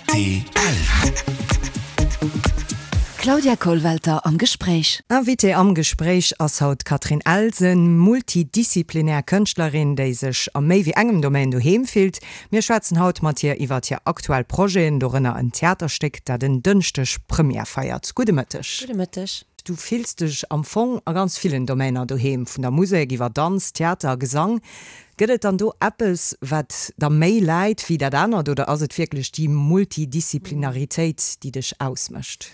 Rtl. Claudia Kollwelter am Gespréich. Invitée am Gespréich ass haut d'Catherine Elsen, multidisziplinär Kënschtlerin, déi sech a méi wéi engem Domaine doheem fillt. Mir schwätzen haut mat hir iwwert hir aktuell Projeten, dorënner en Theaterstéck, dat en Dënschdeg Première feiert. Gudde Mëtteg. Gudde Mëtteg. Du fills dech am Fong a ganz villen Domainer doheem, vun der Musek iwwer Danz, Theater a Gesang. Gëtt et dann do eppes, wat der méi läit wéi dat anert, oder ass et wierklech déi Multidisziplinaritéit, déi dech ausmécht?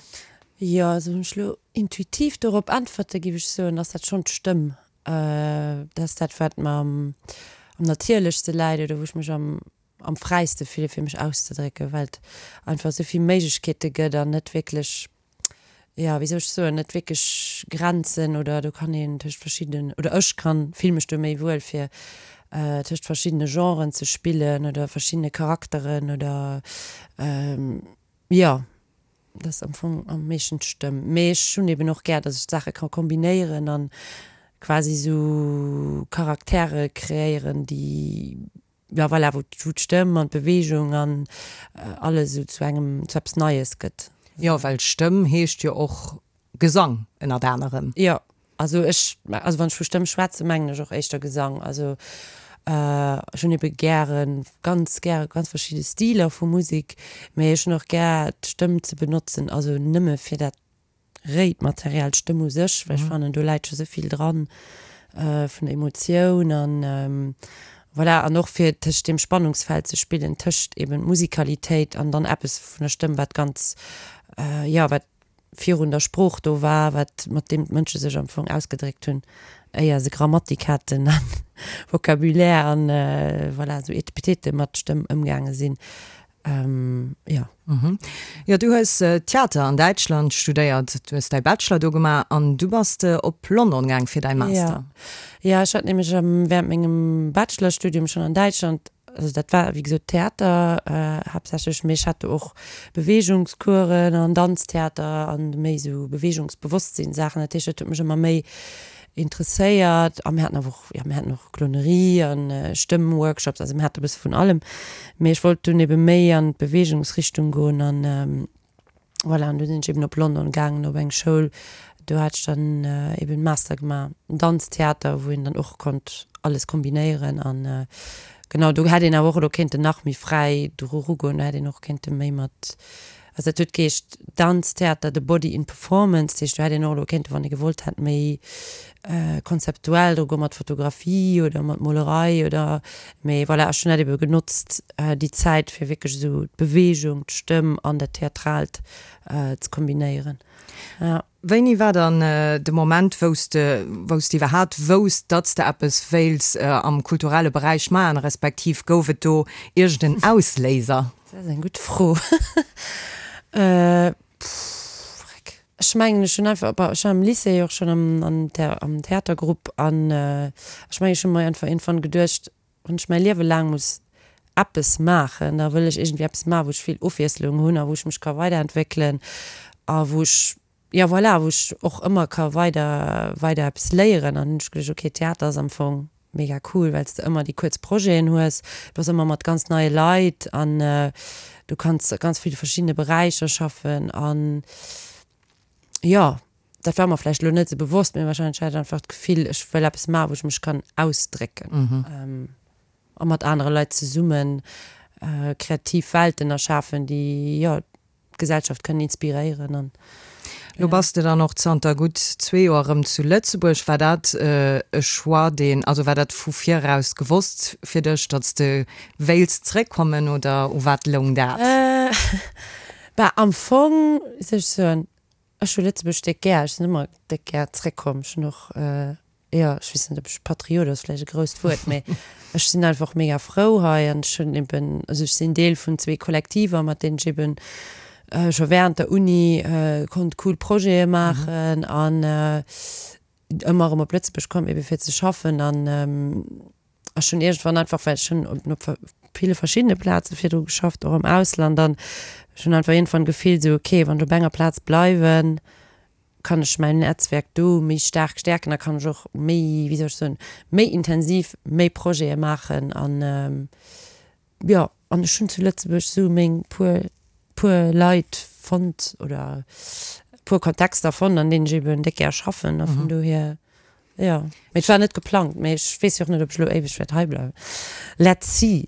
Jo, also wann ech elo intuitiv dorop äntwerte géif ech soen, ass dat schonn d'Stëmm. Dat ass dat, wat mer am natierlechste läit oder wou ech mech am am fräiste fille fir mech auszedrécken, well et einfach esou vill Méiglechkeete gëtt an net wierklech, jo, wéi soll ech soen, net wierklech Grenzen oder do kann een tëscht verschiddenen, oder ech kann, fill mech do méi wuel fir tëscht verschiddene Genren ze spillen oder verschiddene Charakteren oder jo, dat ass am Fong am meeschten d'Stëmm. Mee ech hunn eben och gär, datt ech d'Saache ka kombinéieren an quasi esou Charaktere kreéieren, déi Jo, voilà, wou d'Stëmm an d'Beweegung an alles esou zu engem, zu eppes Neies gëtt. Jo, well Stëmm heescht jo och Gesang ënnert anerem. Jo, also ech, also wann ech vu Stëmm schwätzen, mengen ech och éischter Gesang. Also ech hunn ebe gären, ganz gäre ganz verschidde Stiler vu Musek, mee ech hunn och gär d'Stëmm ze benotzen, also nëmme fir dat réit Material, d'Stëmm u sech, well ech fannen do läit scho sou vill dran vun der Emotioun an voilà an och fir tëscht deem Spannungsfeld ze spillen tëscht eben Musikalitéit an dann eppes vun der Stëmm wat ganz jo wat virun der Sprooch do war, wat mat deem d'Mënsche sech am Fong ausgedréckt hunn éier se Grammatik haten an Vocabulaire an voilà sou Etepetete mat Stëmm ëmgaange sinn. Jo. Jo, du hues Theater an Däitschland studéiert, du hues däi Bachelor do gemaach an du bass de op London gaang fir däi Master. Jo, jo, ech hat nämlech während mengem Bachelorstudium schonn an Däitschland, also dat war wéi gesot Theater haaptsächlech, mee ech hat do och Beweegungscoursen an Danztheater an méi esou Beweegungsbewosstsinn-Saachen. Dat heescht, dat huet mech ëmmer méi interesséiert a mir haten awer och, jo mir haten och Clownerie an Stëmm-Workshops, also mir hate e bësse vun allem, mee ech wollt dunn ebe méi an d'Beweegungsrichtung goen an voilà, an du sinn ech eben op London gaangen op eng Schoul, do hat ech dann eben Master gemaach, Danztheater, wou een dann och konnt alles kombinéieren an genau, do hätt een awer och elo kéinten nach méi fräi dru rugoen, do hätt een och kéinte méi mat Also dat huet geheescht Danztheater, the body in performance. Dat heescht, do hätt een och elo kéinten, wann ee gewollt hätt, méi konzeptuell dru goen, mat Fotografie oder mat Molerei oder, mee voilà, ech hunn dat ebe genotzt, déi Zäit, fir wierklech esou d'Beweegung, d'Stëmm an dat Theatraalt ze kombinéieren, ja. Wéini war dann de Moment, wou s de, wou s de iwwerhaapt wousst, datt s de eppes wéilts am kulturelle Beräich maachen, respektiv gouf et do iergend en Ausléiser? Dat ass eng gutt Fro. Pff, ech mengen, ech hunn einfach, bon, ech war am Lycée och schonn am, am am Theatergrupp an ech mengen, ech hu mer einfach iergendwann geduecht, wann ech mäi Liewe laang muss eppes maachen, da wëll ech iergendwéi eppes maachen, wou ech vill Ofwiesslung hunn a wou ech mech ka weiderentwéckelen a wou ech, jo voilà, wou ech och ëmmer ka weider, weider eppes léieren. An hunn ech geduecht, okay, Theater ass am Fong mega cool, well s de ëmmer déi kuerz Projeten hues, du bass ëmmer mat ganz neie Leit an du kanns a ganz ville verschiddene Beräicher schaffen an jo. Dat war mer vläicht elo net esou bewosst, mee wahrscheinlech hat ech einfach d'Gefill, ech wëll eppes maachen, wou ech mech kann ausdrécken a mat anere Leit zesumme kreativ Welten erschafen, déi, jo, d'Gesellschaft kënnen inspiréieren an. Lo bass de dann och zanter gutt zwee Joer erëm zu Lëtzebuerg. War dat e Choix, deen, also war dat vu viraus gewosst fir dech, datt s de wéilts zréckkommen oder u wat loung dat? Bah, am Fong, wéi soll ech soen, Ech hu Lëtzebuerg déck gär. Ech sinn ëmmer déck gär zréckkomm. Ech hunn och, jo, ech weess net, ob ech Patriot ass vläicht e grousst Wuert, mee ech sinn einfach mega frou hei an ech hunn eben, also ech sinn Deel vun zwee Kollektiver, mat deenen ech eben scho während der Uni konnt cool Projete maachen an ëmmer erëm op Lëtzebuerg komm, ebe fir ze schaffen an ech hunn iergendwann einfach, well ech hunn op ville verschiddene Plaze virdru geschafft, och am Ausland, an ech hunn einfach iergendwann gefillt esou, okay, wann ech op enger Plaz bleiwen, kann ech mäin Netzwerk do méi staark stäerken, da kann ech och méi, wéi soll ech soen, méi intensiv méi Projete maachen an jo, an ech hunn zu Lëtzebuerg esou meng puer. puer Leit fonnt oder e puer Kontexter fonnt, an deenen ech eben déck gär schaffen a vun dohier, jo. Mee et war net geplangt, mee ech weess jo och net, ob ech elo éiweg wäert hei bleiwen. Let's see.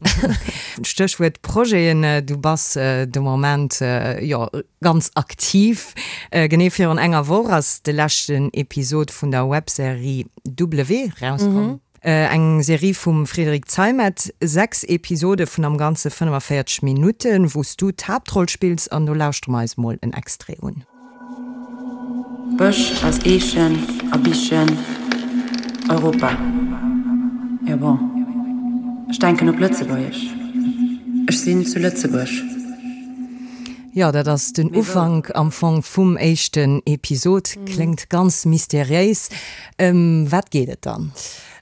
Stéchwuert Projeten, du bass de Moment jo ganz aktiv. Genee virun enger Woch ass de leschten Episod vun der Webserie W rauskomm. Eng Serie vum Frédéric Zeimet, 6 Episode vun am Ganze 45 Minutten, wou s du d'Haaptroll spills an do lauschtere mer eis mol en Extrait un. Bësch aus Eechen a Bichen, Europa, jo bon, ech denken op Lëtzebuergesch, ech sinn zu Lëtzebuerg. Jo, dat ass den Ufank am Fong vum éischten Episod. Kléngt ganz mysteriéis. Ëm wat geet et dann?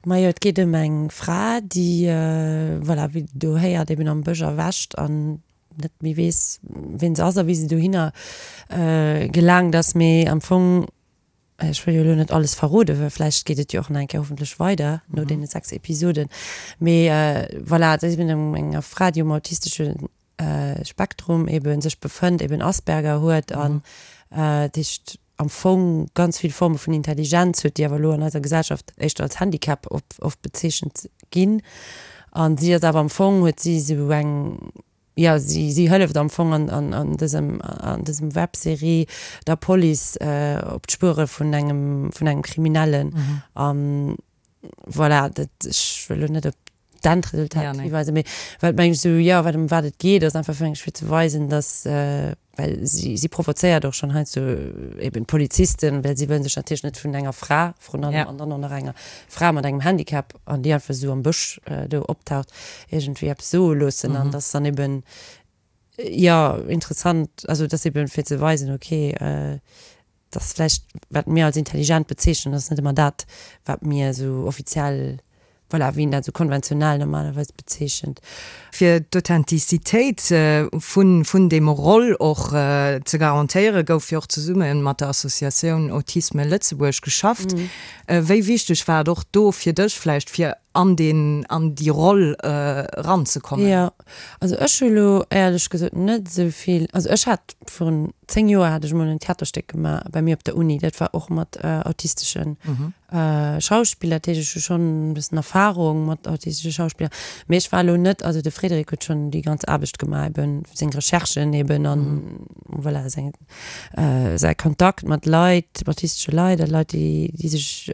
Majo, et geet ëm eng Fra, déi, voilà, wéi Der do héiert, eben am Bësch erwächt an net méi weess, wien se ass a wéi se dohinner gelaangt ass. Mee am Fong, ech wëll jo elo net alles verroden, well vläicht geet et jo och nach eng Kéier hoffentlech weider no deene 6 Episoden. Mee voilà, et ass eben ëm enger Fra, déi um autistesche Spektrum eben sech befënnt, eben Asperger huet an dat heescht am Fong ganz vill Forme vun Intelligenz huet, déi awer elo an eiser Gesellschaft éischter als Handicap oft bezeechent ginn. An si ass awer am Fong, huet si esou eng, jo, si si hëlleft am Fong an an an dësem an dësem Webserie der Police op d'Spuere vun engem vun engem Kriminellen. An voilà, dat, ech wëll elo net op d'Endresultat ja, nee. hiweisen, mee wat meng ech esou, jo, wat ëm wat et geet, ass einfach fir eng fir ze weisen, dass, well si si provozéiert och schonn heiansdo eben d'Polizisten, well si wëllen sech natierlech net vun enger Fra vrun allem ja. an dann och nach enger Fra mat engem Handicap an déi einfach esou am Bësch do optaucht, iergendwéi eppes soe loossen an dass dann eben, jo, interessant, also dass eben fir ze weisen, okay, dass vläicht, wat mir als intelligent bezeechnen, ass net ëmmer dat, wat mir esou offiziell, voilà, wéi een dat esou konventionell normalerweis bezeechent. Fir d'Authentizitéit vun vun deem Roll och ze garantéieren, gouf jo och zesumme mat der Associatioun Autisme Lëtzebuerg geschafft. Wéi wichteg war et och do fir dech vläicht, fir an deen, an déi Roll eranzekommen? Jo, also ech hu lo éierlech gesot net esou vill, also ech hat virun 10 Joer hat ech mol en Theaterstéck gemaach bei mir op der Uni, dat war och mat autistesche Schauspiller, dat heescht ech hu schonn e bëssen Erfarung mat autistesche Schauspiller, mee ech war elo net, also de Frédéric huet schonn déi ganz Aarbecht gemaach eben, seng Recherchen eben an voilà seng säi Kontakt mat Leit, autistesche Leit a Leit déi déi sech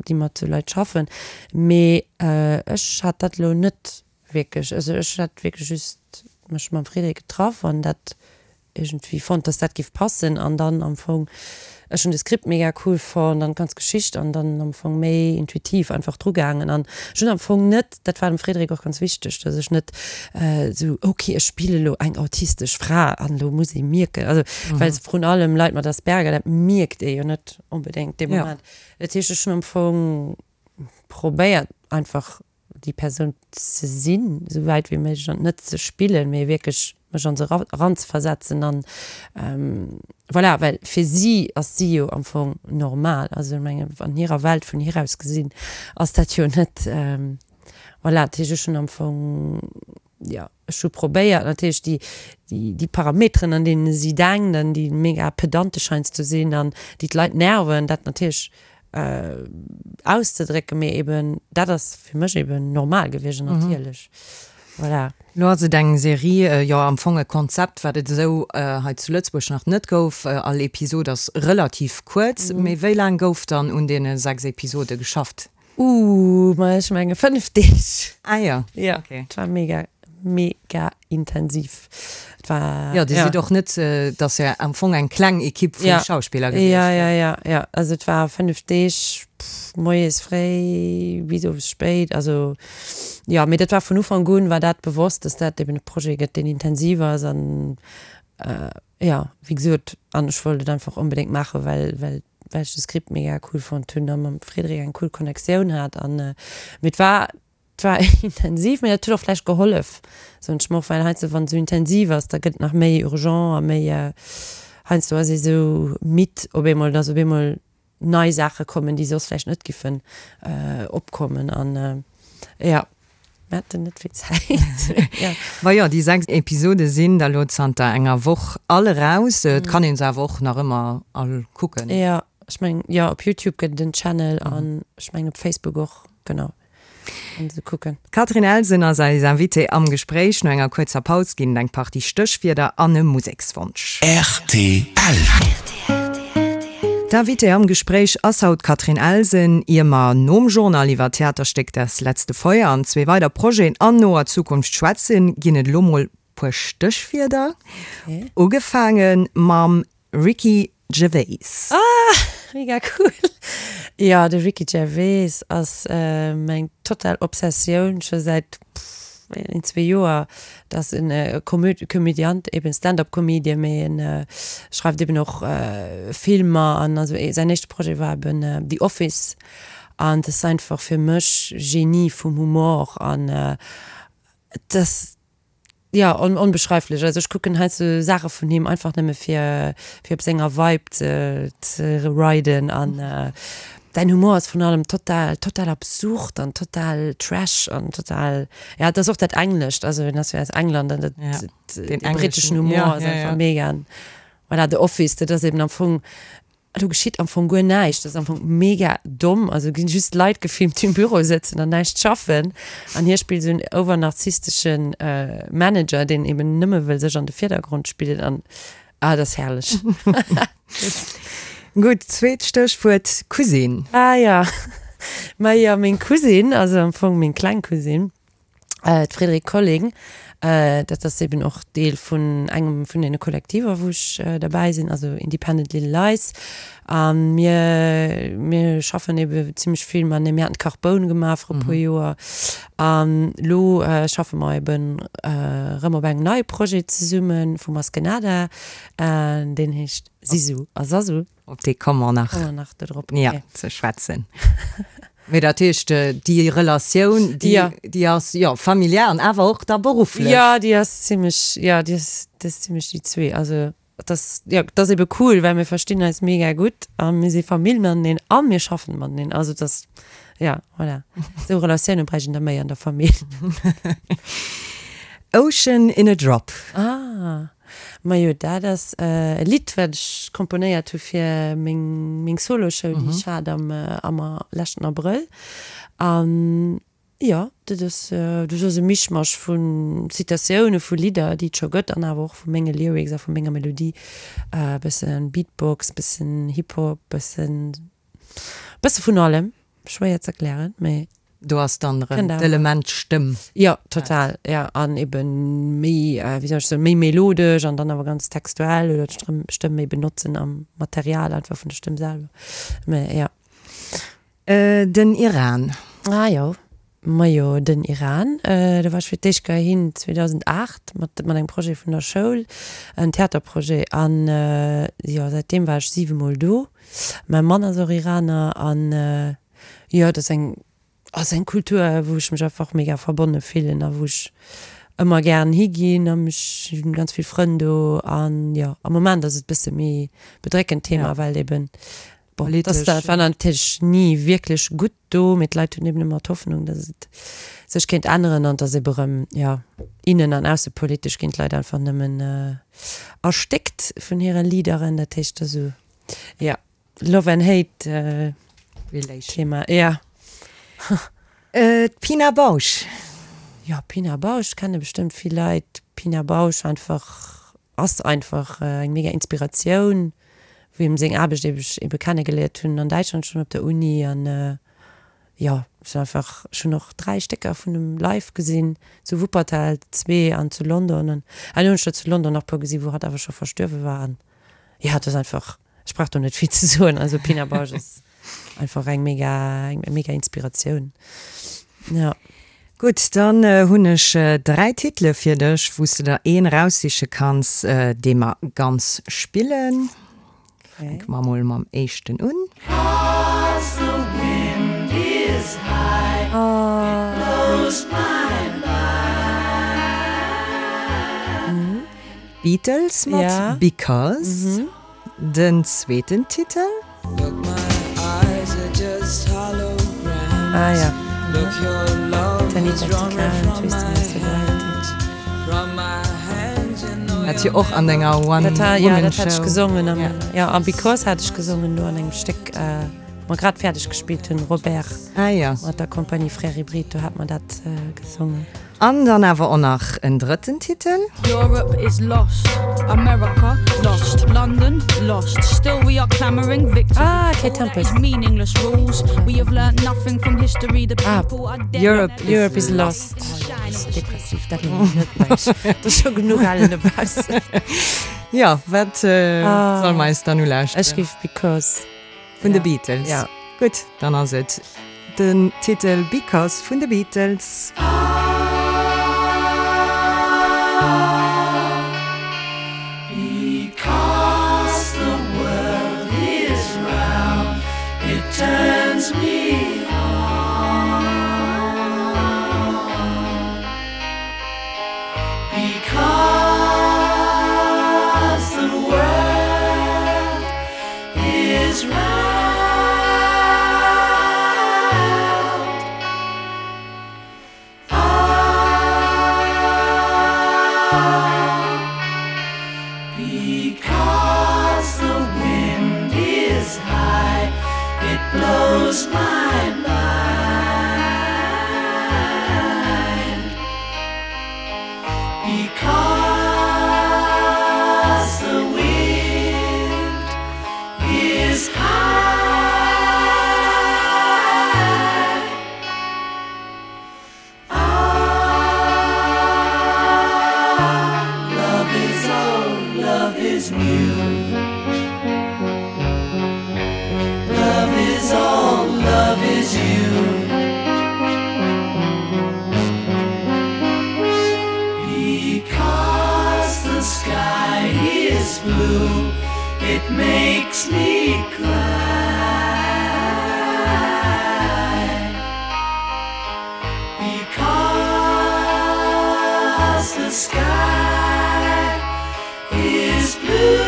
déi mat sou Leit schaffen, mee ech hat dat elo net wierklech, also ech hat wierklech just mech mam Frédéric getraff an dat iergendwéi fonnt, dass dat giff passen an dann am Fong, ech hunn de Script mega cool fonnt an d'ganz Geschicht an dann am Fong méi intuitiv einfach dru gaangen an ech hunn am Fong net, dat war dem Frédéric och ganz wichteg, dass ech net esou, ok ech spille lo eng autistesch Fra an elo muss ee mierken, also well vrun allem Leit mat Asperger, dat mierkt ee jo net onbedéngt dee Moment. Dat heescht ech hunn am Fong probéiert einfach déi Persoun ze sinn, esou wäit wéi méiglech an net ze spillen, mee wierklech mech an se eranzeversetzen an voilà, well fir si ass si jo am Fong normal, also ech mengen an hirer Welt vun hir aus gesinn ass dat jo net voilà. Dat heescht ech hunn am Fong, jo ech hu probéiert natierlech déi déi Parameteren an deene si denkt an déi mega pedantesch heiansdo sinn an déi d'Leit nerven, dat natierlech auszedrécken, mee eben dat ass fir mech eben normal gewiescht an natierlech. Voilà. Lo ass et eng Serie, jo am Fong e Konzept, wat et esou hei zu Lëtzebuerg nach net gouf. All Episod ass relativ kuerz, mee wéi laang gouf dann un deene 6 Episode geschafft? Ooh, ma ech menge 5 Deeg. Ah jo, Jo, okay. Et war mega, mega intensiv. Et war, Jo, Dir sidd och net, et ass jo am Fong eng kleng Ekipp vu Schauspiller gewiescht. Ja, ja, ja, ja. Also et war 5 Deeg, moies fréi bis owes spéit. Also jo, mee dat war vun Ufank un war dat bewosst, dass dat eben e Projet gëtt, deen intensiv ass an jo, wéi gesot, an ech wollt et einfach onbedéngt maachen, well, well well ech de Script mega cool fonnt hunn a mam Frédéric eng cool Connectioun hat an mee et war et war intensiv, mee dat huet och vläicht gehollef soen ech mer och, well heiansdo wann et esou intensiv ass, da gëtt et nach méi urgent a méi heiansdo ass ee sou midd op eemol, dass op eemol nei Saache kommen, déi soss vläicht net giffen opkommen an jo. Mir haten net vill Zäit. Ja. Majo, déi 6 Episode sinn da lo zanter enger Woch all eraus. Et kann een se awer och nach ëmmer all kucken. Jo, ech mengen, jo, op Youtube gëtt et en Channel an ech mengen op Facebook och, genau, kann se kucken. D'Catherine Elsen ass eis Invitée am Gespréich. No enger kuerzer Paus ginn et eng Partie Stéchwierder an e Musekswonsch. Rtl. D'Invitée am Gespréich ass haut d'Catherine Elsen. Ier mer nom Journal iwwer d'Theaterstéck Das letzte Feuer an zwee weider Projeten an noer Zukunft schwätzen, ginn et elo mol puer Stéchwierder. Ugefaange mam Ricky Gervais. Ah, mega cool! Jo, de Ricky Gervais ass meng total Obsessioun scho säit een, zwee Joer. Dat ass en Komödiant, eben Stand-up-Comedian, mee en schreift eben och Filmer an also säin éischte Projet war eben The Office an dat ass einfach fir mech Genie vum Humor an et ass, jo, onbeschreiflech. Also ech kucken heiansdo Saache vun him einfach nëmme fir fir op senger Vibe ze ze riden an Däin Humor ass vrun allem total, total absurd an total trash an total, ja, et ass och dat Englescht, also en ass jo aus England an dat, Ja, den den britteschen englischen, Humor ja, ass ja, einfach ja. mega. An voilà, The Office, dat ass eben am Fong, do geschitt am Fong guer näischt, dat ass am Fong mega domm, also ginn just Leit gefilmt, déi um Büro sëtzen an näischt schaffen an hie spillt esou en overnarzissteschen Manager, deen eben nëmme wëll sech an de Virdergrond spillen an Ah, dat ass herrlech. Gutt, zweet Stéchwuert, Cousine. Ah ja, ma jo, meng Cousine, also am Fong meng kleng Cousine, d'Frédérique Colling, dat ass eben och Deel vun engem vun deene Kollektiver, wou ech derbäi sinn, also Independent Little Lies. A mir, mir schaffen ebe zimmlech vill matenee. Mir haten d'Carboun gemaach viru e puer Joer. An elo schaffe mer eben erëm op engem neie Projet zesumme vu Maskenada, deen heescht Sisu a Sasu. Op dee komme mer nach. Komme mer nach do drop, okay. Ja, ze schwätzen. Mee dat heescht, déi Relatioun, déi, déi ass, jo, familiär an awer och da berufflech. Jo, déi ass zimmlech, jo, déi ass, déi ass zimmlech déi zwee. Also Et ass, jo, et ass ebe cool, well mir verstinn eis mega gutt a mir si Famill mateneen a mir schaffen mateneen. Also et ass, ja, voilà. Esou Relatioune bräicht een der méi an der Famill. Ocean in a Drop. Ah, majo, dat ass e Lidd, wat ech komponéiert hu fir meng, meng Soloshow, déi ech hat am, am leschten Abrëll. An Jo, dat ass, dat ass e Mischmasch vu Zitatioune vu Lidder, déi et scho gëtt, an awer och vu menge Lyrics a vu menger Melodie. E bësse Beatbox, bëssen Hip-Hop, bëssen, bësse vun allem. Schwéier z'erklären, mee. Do ass dann erëm d'Element Stëmm. Jo, total, jo. An ebe méi, wéi soll ech soen, méi melodesch an dann awer ganz textuell oder d'Stëmm, Stëmm méi benotzen am Material einfach vun der Stëmm selwer. Mee jo. Den Iran. Ah jo, majo den Iran, do war ech fir d'éischt Kéier hin 2008 mat mat engem Projet vun der Schoul, en Theaterprojet an jo säitdeem war ech 7 mol do. Mäi Mann ass och Iraner an jo et ass eng ass eng Kultur wou ech mech einfach mega verbonne fillen a wou ech ëmmer gären higinn a mech hunn ganz vill Frënn do an jo am Moment ass et bësse méi bedréckend Thema well eben Bon, Politesch. dat war natierlech ni wierklech gutt do, mee d'Leit hunn eben ëmmer d'Hoffnung, datt et sech kéint änneren an datt ebe rëm, jo, innen an aussepolitesch ginn d'Leit einfach nëmmen erstéckt vun hire Leaderen. Dat heescht, dat ass esou, jo, Love and Hate Relation. Thema, jo. D'Pina Bausch. Jo, Pina Bausch kenne bestëmmt vill Leit. Pina Bausch einfach Ass einfach eng mega Inspiratioun, wou him seng Aarbecht ebe ebe kennegeliert hunn an Däitschland schonn op der Uni an jo ech hunn einfach ech hunn och 3 Stécker vun em live gesinn, zu Wuppertal zwee an zu London an ah hunn ech der zu London nach puer gesinn, wou hatt awer scho verstuerwe war an jo et ass einfach ech brauch do net vill ze soen, also Pina Bausch ass Einfach eng mega, eng mega Inspiratioun. Ja. Gutt, dann hunn ech 3 Titele fir dech, wou s de der een eraussiche kanns, dee mer ganz spillen. Fänke mer mol mam éischten un. D'Beatles mat Because. Den zweeten Titel. Anita Tical, Twisting of Sobriety. Dat jo och an denger One Dat war, ja, Woman dat hat ech Show. gesongen am, Ja. ja, a Because hat ech gesongen do an engem Stéck, wou mer grad fäerdeg gespillt hunn, Robert Ah ja. mat der Compagnie Frères Hybrides, do hat mer dat gesongen. An dann awer och nach en drëtten Titel. Europe is lost, America lost, London lost, still we are clamouring victory. Ah, Kate All that Tempest. is meaningless rules, we have learnt nothing from history, the Ah, people are dead Europe and is Europe is lost. Oh, jo, dat ass depressiv, dat hunn ech net mech. Dat ass scho genuch ellen dobaussen. Jo, wat solle mer eis dann ulauschteren? Ech géif Because. Vun de Beatles. Ja. Gutt, dann ass et den Titel Because vun de Beatles. Because the world is round, it turns me on. Because the world is round. Ah, because the wind is high, it blows my mind. Because the wind is high. Ah, love is old, love is new. Love is old, love is you. Because the sky is blue, it makes me cry. Because the sky is blue.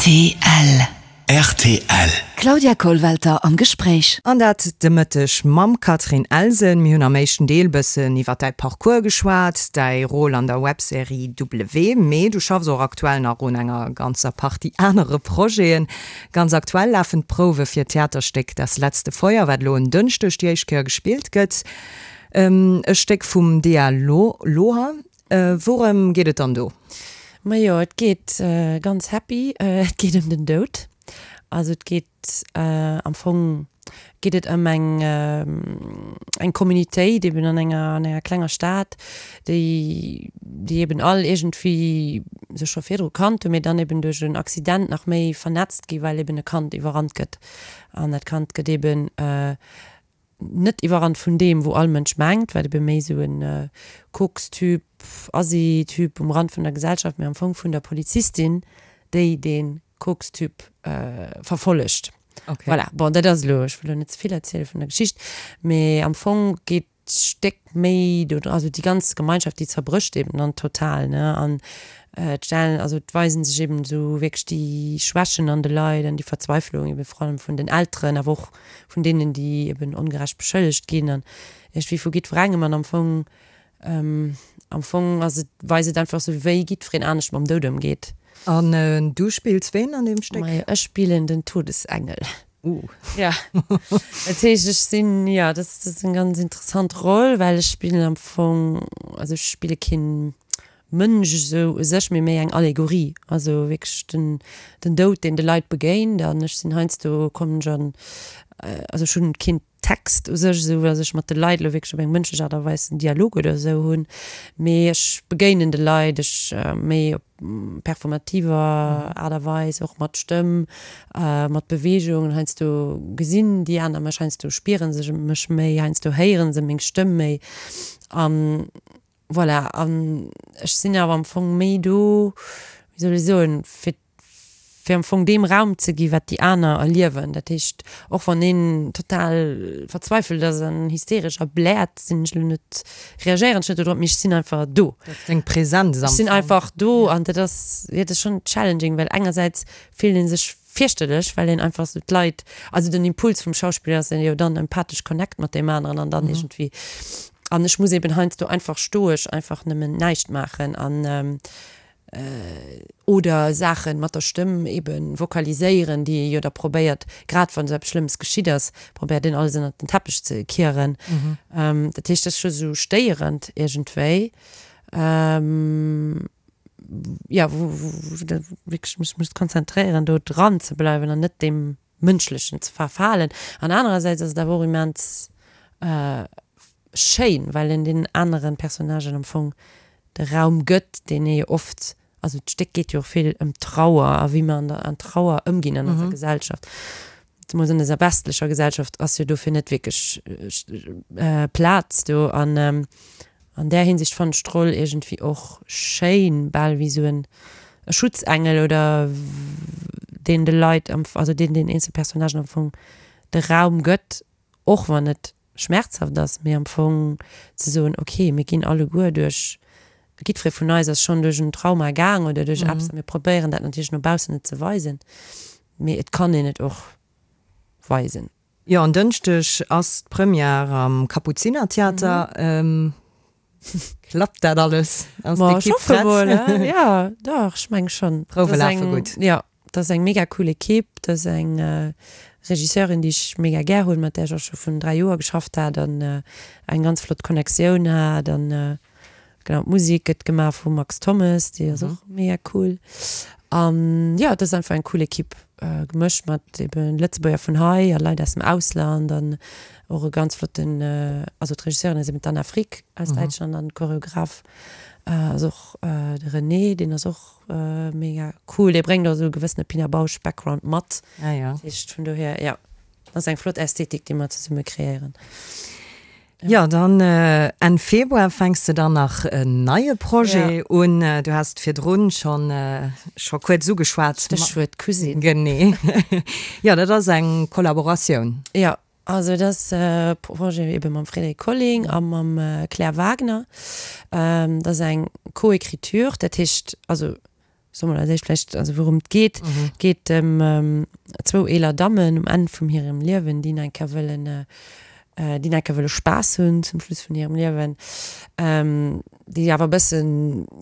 Rtl. Rtl. Claudia Kollwelter am Gespréich. An dat de Mëtteg mam Catherine Elsen. Mir hunn am éischten Deel bëssen iwwer däi Parcours geschwat, däi Rôle an der Webserie W, mee du schaffs och aktuell nach un enger ganzer Partie anere Projeten. Ganz aktuell lafen d'Prouwe fir d'Theaterstéck Das letzte Feuer, wat elo en Dënschdeg déi éischt Kéier gespillt gëtt. E Stéck vum Dea Loher. Wourëm geet et dann do? Majo, et geet ganz happy, et geet ëm den Doud. Also et geet am Fong geet et ëm eng eng Communitéit eben an enger an enger klenger Stad, déi déi eben all iergendwéi sech scho virdru kannt hunn, mee dann eben duerch en Accident nach méi vernetzt gi well eben e Kand iwwerrannt gëtt. An dat Kand gëtt eben net iwwerrannt vun deem wou all Mënsch mengt, wat ebe méi esou en Koks-Typ, Assi-Typ um Rand vun der Gesellschaft, mee am Fong vun der Polizistin, déi dee Koks-Typ verfollegt. Okay. Voilà, bon, dat ass elo, ech wëll elo net ze vill erziele vun der Geschicht, mee am Fong geet d'Stéck méi do, also déi ganz Gemeinschaft, déi zerbrécht eben dann total, ne, an et stellen, also et weisen sech eben esou wierklech déi Schwächen an de Leit an déi Verzweiflung eben vor allem vun den Elteren, awer och vun deenen, déi eben ongerecht beschëllegt ginn an iergendwéi vu jiddwerengem. An am Fong, am Fong ass et, weist et einfach esou, wéi jiddwereen anescht mam Doud ëmgeet. An du spills ween an deem Stéck? Majo, ech spillen den Todesengel. Uh. Ja, dat heescht, ech sinn, jo, dat ass eng ganz interessant Roll, well ech spillen am Fong, also ech spille keen Mënsch esou u sech, mee méi eng Allegorie, also wierklech den den Doud, deen de Leit begéint. An ech sinn heiansdo, kommen ech an. also ech hunn keen Text u sech, esou datt ech mat de Leit elo wierklech op eng mënschlech Aart a Weis en Dialog oder esou hunn, mee ech begéinen de Leit, ech méi op performativer Aart a Weis, och mat Stëmm, mat Beweegung. Heiansdo gesinn déi aner mech, heiansdo spiere se mech méi, heiansdo héiere se meng Stëmm méi. An voilà, an ech sinn awer am Fong méi do, wéi soll ech soen, fir fir am Fong deem Raum ze gi wat déi aner erliewen. Dat heescht, och wann een total verzweifelt ass an hysteresch a bläert, sinn ech elo net, reagéieren ech net dodrop, mee ech sinn einfach do. Dat ass deng Präsenz am Fong. Ech sinn einfach do an dat ass, jo, dat ass schonn challenging, well engersäits fillt ee sech fierchterlech, well een einfach esou d'Leit, also den Impuls vum Schauspiller ass jo dann empathesch Connect mat deem aneren an dann iergendwéi, an ech muss eben heiansdo einfach stoesch einfach nëmmen näischt maachen an oder Saachen mat der Stëmm eben vokaliséieren, déi ee jo da probéiert, grad wann esou eppes Schlëmmes geschitt ass, probéiert een alles ënnert den Teppech ze kieren. Dat heescht, dat ass scho sou stéierend iergendwéi, jo, wou wou de wierklech mech muss konzentréieren, do dran ze bleiwen an net deem Mënschlechen ze verfalen. An anerersäits ass et awer och immens schéin, well een deenen aneren Personnagen am Fong de Raum gëtt, deen ee jo oft, also d'Stéck geet jo och vill ëm Trauer a wéi mer an der an Trauer ëmginn an eiser Gesellschaft, zemools an eiser westlecher Gesellschaft ass jo dofir net wierklech Plaz do. An an där Hinsicht fannen ech d'Roll iergendwéi och schéin, bal wéi esou en Schutzengel oder deen de Leit am, also deen den eenzel Personnagen am Fong de Raum gëtt, och wann et schmerzhaft ass, mee am Fong ze soen, ok, mir ginn alleguer duerch, jiddweree vun eis ass schonn duerch en Trauma gaang oder duerch eppes a mir probéieren dat natierlech no baussen net ze weisen, mee et kann een et och weisen. Jo, en Dënschdeg ass d'Première am Kapuzinertheater. Klappt dat alles? Ass d'Ekipp prett? Jo, dach, ech meng schonn. D'Prouwe lafe gutt? Jo, dat ass eng mega cool Ekipp. Dat ass eng Regisseurin, déi ech mega gär hunn, mat där ech och scho vun 3 Joer geschafft hat an eng ganz flott Connectioun hat. An genau, d'Musek gëtt gemaach vum Max Thommes, déi ass och mega cool. An jo, dat ass einfach eng cool Ekipp, gemëscht mat ebe Lëtzebuerger vun hei a Leit aus dem Ausland an och e ganz flotten, also d'Regisseurin ass eben d'Anna Frick aus Däitschland an Choreograph ass och de René, deen ass och mega cool. Dee bréngt och esou e gewëssene Pina Bausch Background mat. Ah jo. Dat heescht vun dohier, jo, ass eng flott Ästhetik, déi mer zesumme kreéieren. Jo, dann Enn Februar fänks de dann nach en neie Projet un. Du has et virdrun schonn scho kuerz ugeschwat. Stéchwuert Cousine. Genee. Jo, dat ass eng Kollaboratioun. Jo, also et ass e Projet ebe mam Frédéric Colling a mam Claire Wagner. Dat ass eng Co-Écriture, dat heescht, also Soe mer als éischt vläicht, also wourum et geet. Et geet ëm zwou eeler Dammen um Enn vum hirem Liewen, déi nach eng Kéier wëllen, déi nach eng Kéier wëlle Spaass hunn zum Schluss vun hirem Liewen, déi awer e bëssen,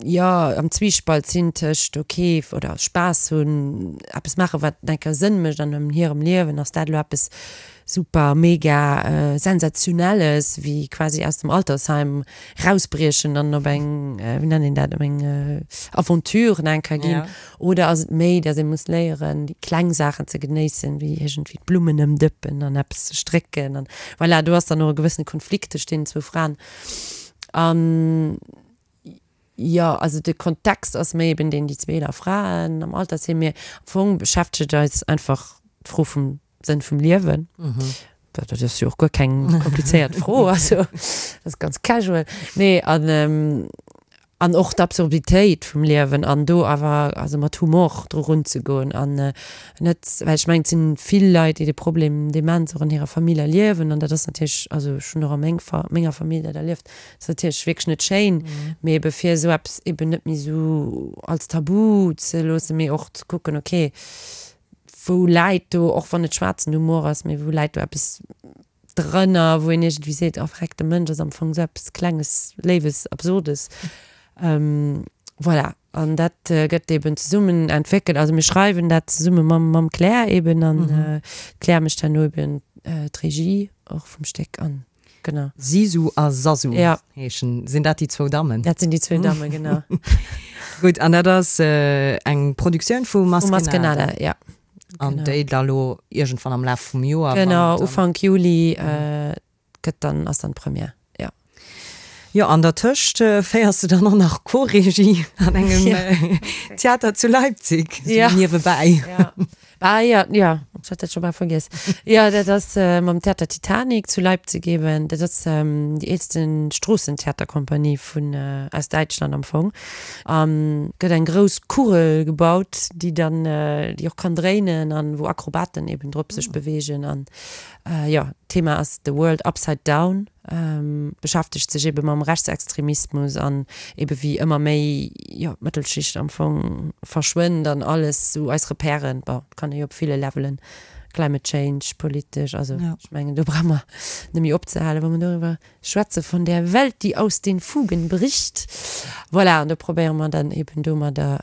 jo, am Zwiespalt sinn tëscht ok oder Spaass hunn, eppes maachen, wat nach eng Kéier Sënn mécht an hirem Liewen. Ass dat elo eppes super mega Sensationelles, wéi quasi aus dem Altersheim rausbriechen an op eng, wéi nennt een dat, op eng Aventure nach eng Kéier ginn? Oder ass et méi, datt ee muss léieren, déi kleng Saachen ze genéissen, wéi iergendwéi d'Blummen ëmdëppen an eppes ze strécken an voilà, do ass dann och e gewëssene Konflikt tëscht deenen zwou Fraen. An jo, also de Kontext ass méi eben deen, déi zwee eeler Fraen am Altersheem, mee am Fong beschäftegt eis einfach d'Fro vum Sënn vum Liewen. Dat ass jo och guer keng komplizéiert Fro, also dat ass ganz casual. Nee, an, an och d'Absurditéit vum Liewen an do awer also mat Humor dru runzegoen an net, well ech mengen, et sinn vill Leit, déi de Problem Demenz och an hirer Famill erliewen an dat ass natierlech, also ech hunn och a meng Fa menger Famill dat erlieft, ass natierlech wierklech net schéin, mee ebe fir esou eppes eben net méi esou als Tabu ze loossen, mee och ze kucken, okay, wou läit do, och wann et schwaarzen Humor ass, mee wou läit do eppes drënner, wou een iergendwéi seet, oh vreck, de Mënsch ass am Fong esou eppes Klenges, Léiwes, Absurdes. Voilà, an dat gëtt eben zesummen entwéckelt. Also mir schreiwen dat zesumme mam, mam Claire eben an d'Claire mécht herno eben d'Regie och vum Stéck an. Genau. Sisu a Sasu ja. heeschen. Sinn dat déi zwou Dammen? Dat sinn déi zwou Dammen, genau. Gutt, an dat ass eng Produktioun vu Maskenada. Vu Maskenada, ja. An déi da lo iergendwann am Laf vum Joer. Genau, Ufank Juli gëtt dann, ass dann d'Première, jo. Jo, an dertëscht féiers de dann och nach Co-Regie an engem Theater zu Leipzig, sou niewebäi. Jo, ah jo, jo, ech hat dat scho bal vergiess. Jo, dat ass mam Theater Titanic zu Leipzig eben. Dat ass déi eelste Stroossentheaterkompanie vun, aus Däitschland am Fong. A gëtt eng grouss Kugel gebaut, déi dann, déi och kann dréinen an wou Akrobaten eben drop sech beweegen an Jo, d'Thema ass The World Upside Down, beschäftegt sech ebe mam Rechtsextremismus an ebe wéi ëmmer méi, jo, d'Mëttelschicht am Fong verschwënnt an alles sou eis Repèren, bon, kann ee jo op ville Levelen, Climate Change, politesch, also ech mengen do brauche mer net méi opzehalen, wa mer doriwwer Schwätze von der Welt, die aus den Fugen bricht. Voilà, an do probéiere mer dann eben domadder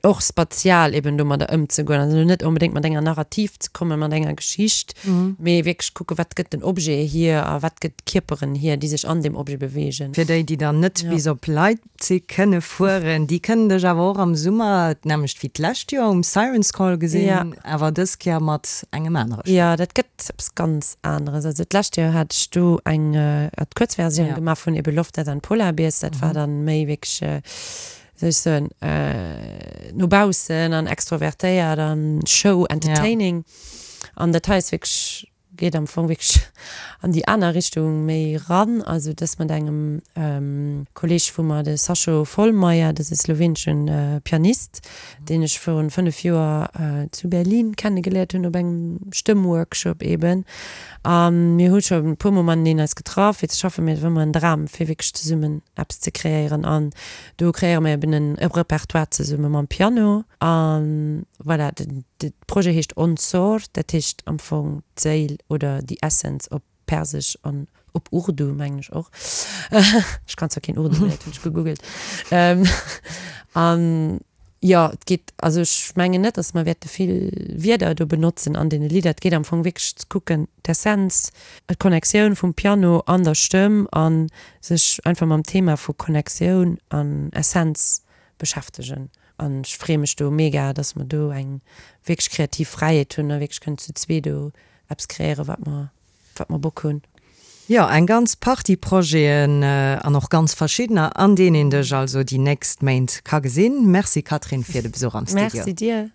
och spatial eben domadder ëmzegoen. Also net onbedéngt mat enger Narrativ ze kommen, mat enger Geschicht, mee wierklech kucke wat gëtt den Objet hier a wat gëtt d'Kierperen hier, déi sech an deem Objet beweegen. Fir déi, déi dann net bis op Leipzig kënne fueren, déi kënnen dech awer och am Summer, d'nämmlecht wéi d'lescht Joer, um Siren's Call gesinn, awer dës Kéier mat engem anere Stéck. Jo, dat gëtt eppes ganz aneres. Also d'lescht Joer hat ech do eng Kuerzversioun gemaach vun eben Love, Death and Polar Bears. Dat war dann méi wierklech, wéi soll ech soen, no baussen an extrovertéiert an Show, entertaining. An dat hei ass wierklech geet am Fong wierklech an déi aner Richtung méi ran. Also dës mat engem Kolleeg vu mer, de Sašo Vollmayr, dat ass e slowenesche Pianist, deen ech virun 5 Joer zu Berlin kennegeléiert hunn op engem Stëmmworkshop eben. A mir hu scho e puermol mateneen eis getraff fir ze schaffen, mee et war ëmmer en Dram fir wierklech zesummen eppes ze kreéieren. An do kreéiere mer eben e Repertoire zesumme mam Piano. A voilà, de Projet heescht Onsor, dat heescht am Fong d'Séil oder die Essence op Persesch an op Urdu mengen ech och. Ech kann zwar keen Urdu, mee dat hunn ech gegoogelt. An jo, et geet, also ech mengen net, datt mer wäerte vill Wierder do benotzen an deene Lidder. Et geet am Fong wierklech ze kucken, d'Essenz, d'Connectioun vum Piano an der Stëmm a sech einfach mam Thema vu Connectioun an Essenz beschäftegen. An ech freeë mech do mega, dass mer do eng wierklech kreativ Fräiheet hunn a wierklech kënnen zu zwee do eppes kreéieren, wat mer, wat mer Bock hunn. Jo, eng ganz Partie Projeten an och ganz verschiddener, an deenen een dech also déi nächst Méint ka gesinn. Merci Catherine fir de Besuch am Studio. Merci dir.